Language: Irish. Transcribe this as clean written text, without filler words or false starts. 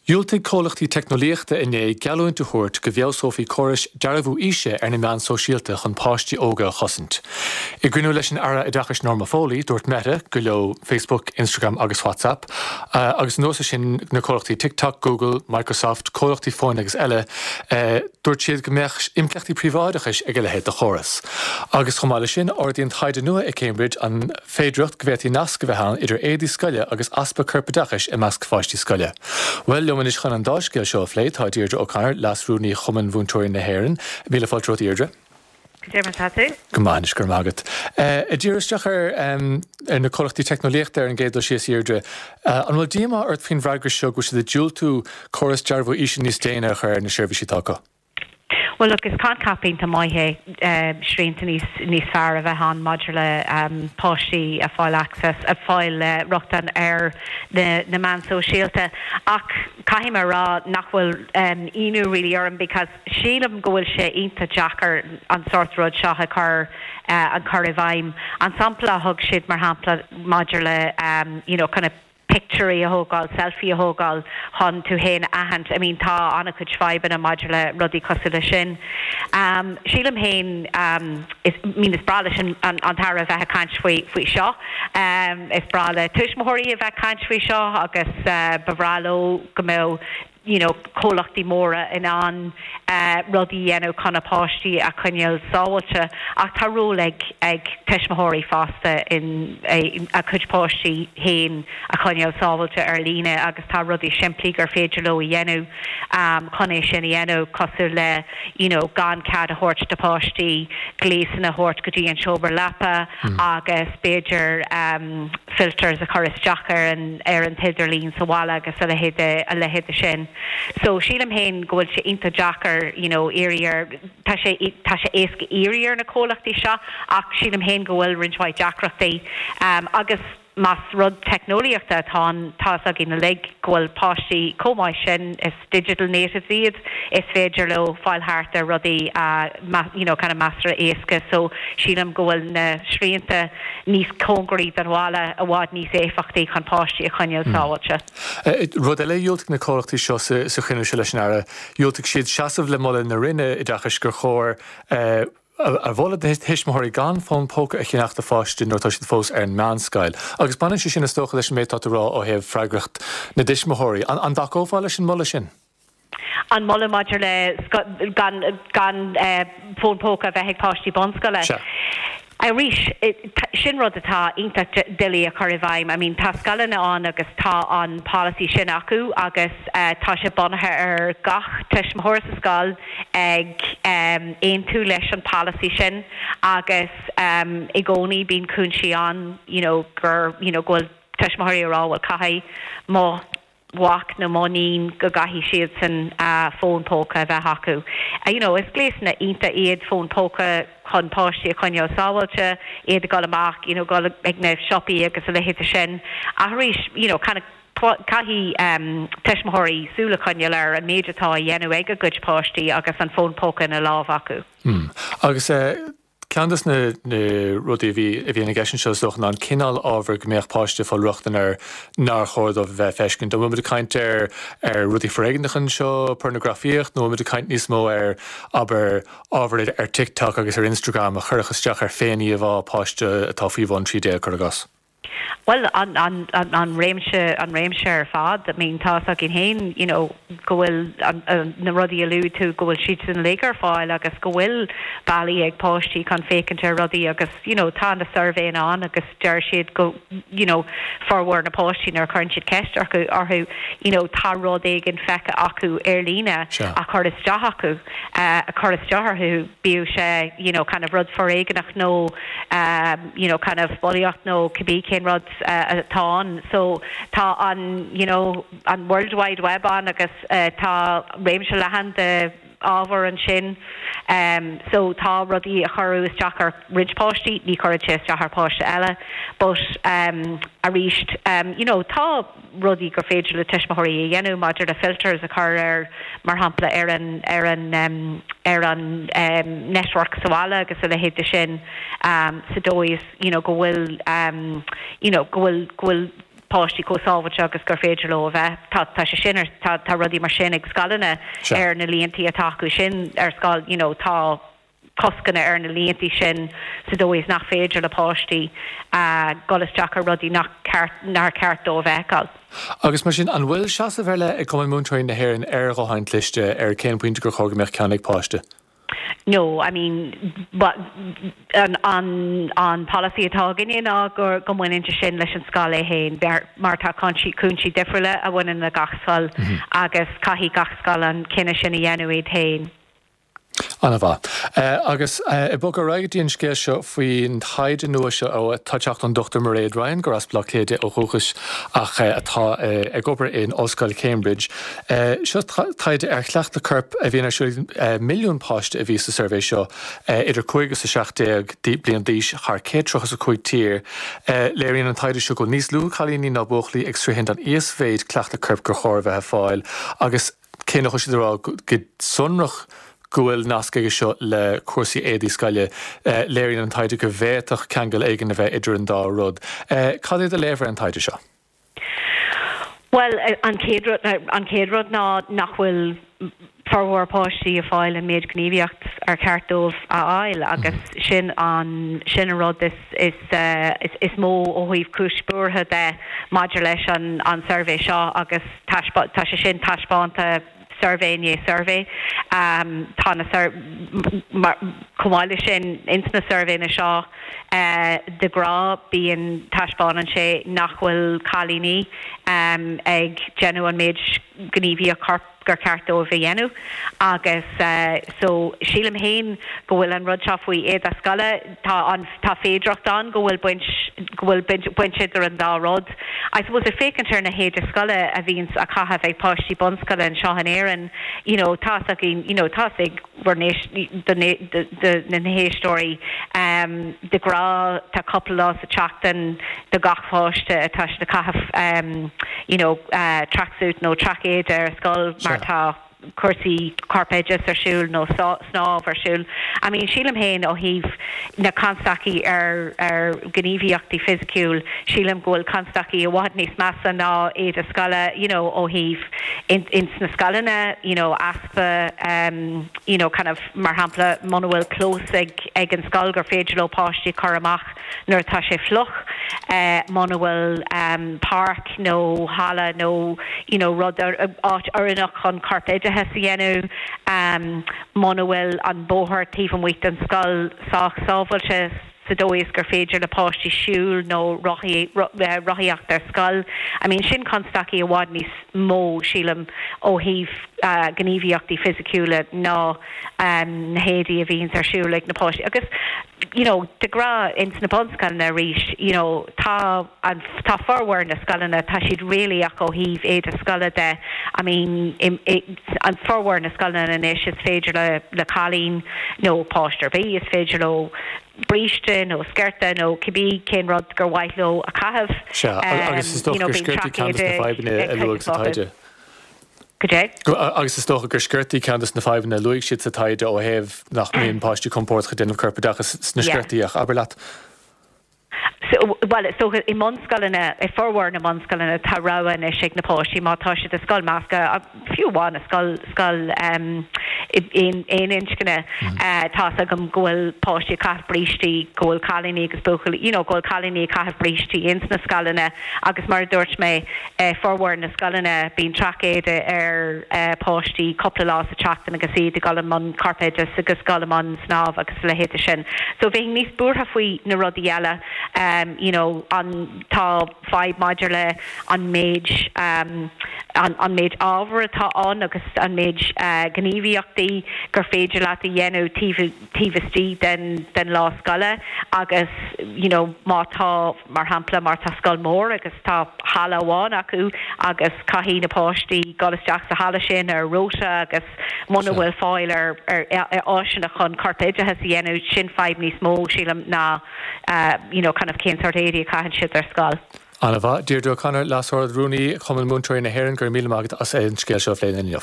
Dhiúltaigh comhlachtaí teicneolaíochta inné geallúint a thabhairt go bhfeabhsófaí córais dearbhú aoise ar na meáin sóisialta chun páistí óga a chosaint. I gcruinniú leis an Aire Oideachais Norma Foley, dúirt Meta gur leo Facebook, Instagram agus WhatsApp, agus anuas air sin na comhlachtaí TikTok, Google, Microsoft, comhlachtaí fóin agus eile, dúirt siad go mbeadh impleachtaí príobháideachais ag a leithéid de chóras. Agus chomh maith leis sin, ardaíonn taighde nua i Cambridge an. féidearthacht go bhféadfaí nasc a bheith ann idir éadaí scoile agus easpa corpoideachais i measc pháistí scoile. Bhuel, liom anois chun an dá scéal seo a phlé tá Deirdre O'Connor, Leas-Rúnaí Chumann Mhúinteoirí na hÉireann. Míle fáilte romhat, a Dheirdre. Cad é mar atá tú? Go maith anois, go raibh maith agat. Ag díriú isteach ar ar na comhlachtaí teicneolaíochta ar an gcéad dul síos, a Dheirdre, an bhfuil díomá ort faoin bhfreagra seo go bhfuil siad ag diúltú córas dearbhú aoise níos déine a chur ar na seirbhísí atá acu? Bhuel look, is coincheap iontach maith é srianta níos níos fearr a bheith ann maidir le páistí a fáil access, a fáil rochtain ar na na meáin sóisialta ach caithfidh mé a rá nach bhfuil ionadh really orm because sílim go bhfuil sé iontach deacair an sórt rud seo a chur a chur i bhfeidhm. An sampla a thug siad mar shampla maidir le you know kind of pictiúirí a thógáil, selfie a thógáil chun tú féin a aithint. I mean tá an-chuid fadhbanna maidir le rudaí cosúil leis sin. Sílim féin, is, I mean is breá leis an an tAire a bheith ag caint faoi faoi seo. Is breá le tuismitheoirí a bheith ag caint faoi seo agus ba bhreá leo go mbeadh you know comhlachtaí móra in ann rudaí a dhéanamh chun a páistí a choinneáil sábháilte ach tá ról ag ag tuismitheoirí fosta in a gcuid páistí féin a choinneáil sábháilte ar líne agus tá rudaí simplí gur féidir leo a dhéanamh chun é sin a dhéanamh cosúil le you know gan cead a thabhairt do pháistí gléasanna a thabhairt go dtí an seomra leapa agus b'fhéidir filters a chur isteach ar an ar an t-idirlíon sa bhaile agus a leithéid de a leithéid de sin. So sílim féin go bhfuil sé iontach deacair you know iarraidh ar tá sé tá sé éasca iarraidh ar na comhlachtaí seo ach sílim féin go bhfuil roinnt mhaith deacrachtaí agus Más rud teicneolaíochta atá ann, tá fhios againn uilig go bhfuil páistí chomh maith sin, is digital natives iad, is féidir leo fáil thart ar rudaí you know kind of measartha éasca so sílim go bhfuil na srianta níos cóngaraí don bhaile i bhfad níos éifeachtaí chun páistí a choinneáil sábháilte. Rud eile a dhiúltaigh na comhlachtaí seo sa chruinniú seo leis an Aire, dhiúltaigh siad seasamh le moladh na Roinne Oideachais gur chóir a mholadh do thuismitheoirí gan fón póca a cheannach do pháiste nuair atá siad fós ar an meánscoil. Agus baineann sé sin is dócha leis an méid atá tú a rá ó thaobh freagracht na dtuismitheoirí. An dtacófá leis an moladh sin? An moladh maidir le gan gan fón póca a bheith ag páistí bunscoile? Sea. Arís, sin rud atá iontach doiligh a chur i bhfeidhm. I mean tá scoileanna ann agus tá an polasaí sin acu agus tá sé bunaithe ar gach tuismitheoir sa scoil ag aontú leis an polasaí sin agus i gcónaí bíonn cúinsí ann you know gur you know go bhfuil tuismitheoirí ag rá bhuel caithfidh mo mhac nó mo níon go gcaithfidh siadsan fón póca a bheith acu. You know is gléasanna iontach iad fón póca chun páistí a choinneáil sábháilte, iad ag dul amach you know dul ag na siopaí agus a leithéid de sin ach arís you know kind of Caithfidh tuismitheoirí súil a choinneáil ar an méid atá á dhéanamh ag a gcuid páistí agus an fón póca ina lámh acu. Agus ceann de na rudaí a bhí a bhíonn i gceist anseo is dócha ná an cineál ábhair go mbeadh páiste ag fáil rochtain air nár chóir dóibh a bheith ag feiscint. An bhfuil muid ag caint ar ar rudaí foréigneacha anseo, pornagrafaíocht, nó an bhfuil muid ag caint níos mó ar, abair, ábhar ar TikTok agus ar Instagram a chuirfeadh isteach ar féin-íomhá páiste atá faoi bhun 13, cuir i gcás? Bhuel, an, an, an réimse, an réimse ar fad. I mean, tá fhios againn féin, you know, go bhfuil an, na rudaí a luaigh tú, go bhfuil siad uilig ar fáil agus go bhfuil bealaí ag páistí chun féachaint ar rudaí agus, you know, tá na suirbhéanna ann agus deir siad go, you know, formhór na páistí nuair a chuireann siad ceist orthu, orthu, you know, tá rud éigin feicthe acu ar líne a chuir isteach acu, a chuir isteach orthu, bíodh sé, you know, kind of rud foréigeanach nó, you know kind of bulaíocht nó cibé cén rud atá ann. So tá an you know an World Wide Web ann agus tá réimse leathan de ábhar ansin. So tá rudaí a chuireadh isteach ar roinnt páistí, ní chuireann sé isteach ar pháiste eile. But arís you know tá rudaí gur féidir le tuismitheoirí a dhéanamh maidir le filters a chur ar, mar shampla, ar an, ar an, ar an network sa bhaile agus a leithéid de sin sa dóigh is, you know, go bhfuil, you know, go bhfuil, go bhfuil. páistí chomh sábháilte agus gur féidir leo a bheith. Tá tá sé sin ar tá tá rudaí mar sin ag scoileanna ar na líontaí atá acu sin ar scoil, you know, tá coscanna ar na líontaí sin sa dóigh is nach féidir le páistí dul isteach ar rudaí nach ceart nár cheart dóibh a fheiceáil. Agus mar sin, an bhfuil seasamh ar leith ag Cumann Múinteoirí na hÉireann ar ghutháin chliste, ar cén pointe gur chóir go mbeadh ceann ag páiste? No, I mean, an an an polasaí atá againne ná go go mbaineann sé sin leis an scoil é féin mar tá cúinsí cúinsí difriúla a bhaineann le gach scoil agus caithfidh gach scoil an cinneadh sin a dhéanamh iad féin. An-mhaith. Agus ag bogadh ar aghaidh go dtí an scéal seo faoin taighde nua seo atá ag teacht ón Dr Mairéad Ryan, gur as Baile Átha Cliath di ó dhúchas ach atá ag obair in Ollscoil Cambridge. Seo taighde ar chleachtadh coirp a bhíonn ar siúl ag milliún páiste a bhí sa suirbhé seo, idir 5 agus 17 bliain d'aois, thar 135 tír. Léiríonn an taighde seo go bhfuil níos lú cailíní ná buachaillí ag sroichint an íosmhéid cleachtadh coirp gur chóir a bheith ag fáil agus cé nach bhfuil siad ag rá go sonrach go bhfuil nasc aige seo le cúrsaí éadaí scoile, léiríonn an taighde go bhféadfadh ceangal éigin a bheith idir an dá rud. Cad é do léamh ar an taighde seo? Bhuel, an chéad rud, an chéad rud ná nach bhfuil formhór páistí ag fáil an méid gníomhaíocht ar cheart dóibh a fháil agus sin an, sin an rud is, is, is mó ó thaobh cúis buartha de maidir leis an, an suirbhé seo agus taispeá, tá sé sin taispeánta suirbhé i ndiaidh suirbhé. Tá na sur, mar, chomh maith leis sin, ins na suirbhéanna seo, de ghnáth bíonn, taispeánann sé nach bhfuil cailíní ag déanamh an méid gníomhaíocht choirp gur ceart dóibh a dhéanamh agus so sílim féin go bhfuil an rud seo faoi éide scoile, tá an, tá féidearthacht ann go bhfuil baint, go bhfuil baint, baint idir an dá rud. I suppose ag féachaint ar na héide scoile a bhíonns á caitheamh ag páistí bunscoile anseo in Éirinn, you know, tá's againn, you know, tá's ag bhur n-éist, do, do na héisteoirí, ehm, de ghnáth tá cúpla lá sa tseachtain do gach pháiste atá siad ag caitheamh, ehm, you know, eh, tracksuit nó traic-éide ar scoil mar tá cúrsaí corpoideachais ar siúl nó snámh ar siúl. I mean, sílim féin ó thaobh na constaicí ar ar ghníomhaíochtaí fisiciúil, sílim go bhfuil constaicí i bhfad níos measa ná éide scoile, you know, ó thaobh in ins na scoileanna, you know, easpa um, you know, kind of, mar shampla, muna bhfuil clós ag ag an scoil gur féidir leo páistí a chur amach nuair atá sé fliuch, muna bhfuil páirc nó halla nó you know rud, áit oiriúnach chun corpoideachas a dhéanamh, muna bhfuil an bóthar taobh amuigh den scoil sách sábháilte sa dóigh is gur féidir le páistí siúl nó rothaíocht ar scoil. I mean sin constaicí i bhfad níos mó, sílim, ó thaobh gníomhaíochtaí fisiciúla ná na héadaí a bhíonns ar siúl ag na páistí. Agus you know de ghnáth ins na bunscoileanna arís you know tá an tá formhór na scoileanna tá siad réalaíoch ó thaobh éide scoile de I mean i i an formhór na scoileanna anois is féidir le le cailín nó páiste ar bith is féidir leo bríste nó sciorta nó cibé cén rud gur mhaith leo a chaitheamh Sea, agus is you dócha know gur bíonn sciortaí ceann traic de na éide fadhbanna ag a cuid luadh sa acu. taighde. Goidé? Agus is dócha gur sciortaí ceann de na fadhbanna a luaigh siad sa taighde ó thaobh nach mbíonn páistí compordach ag déanamh corpoideachas sna sciortaí ach abair leat. So, bhuel, is dócha i mbunscoileanna, i formhór na mbunscoileanna tá rogha anois ag na páistí má tá siad i scoil measctha, fiú amháin i scoil, scoil aon, aon inscne, tá's agam go bhfuil páistí ag caitheamh brístí, go bhfuil cailíní agus buachaillí, you know, go bhfuil cailíní ag caitheamh brístí ins na scoileanna agus mar a dúirt mé, I formhór na scoileanna, bíonn traic-éide ar pháistí cúpla lá sa tseachtain agus iad ag dul i mbun corpoideachais agus dul i mbun snámh agus a leithéide sin. So bheinn níos buartha faoi na rudaí eile, you know, an, tá fadhb maidir le an méid, an méid ábhair atá ann agus an méid gníomhaíochtaí gur féidir leat a dhéanamh taobh, taobh istigh den den lá scoile agus you know má tá, mar shampla, má tá scoil mór agus tá halla amháin acu agus caithfidh na páistí dul isteach sa halla sin ar rota agus muna bhfuil fáil ar ar áiseanna chun corpoideachas a dhéanamh, sin fadhb níos mó, sílim, ná you know kind of cén sórt éadaí a chaitheann siad ar scoil. An-mhaith. Deirdre O'Connor, Leas-Ard-Rúnaí Chumann Múinteoirí na hÉireann, go raibh míle maith agat as an scéal seo a phlé linn inniu.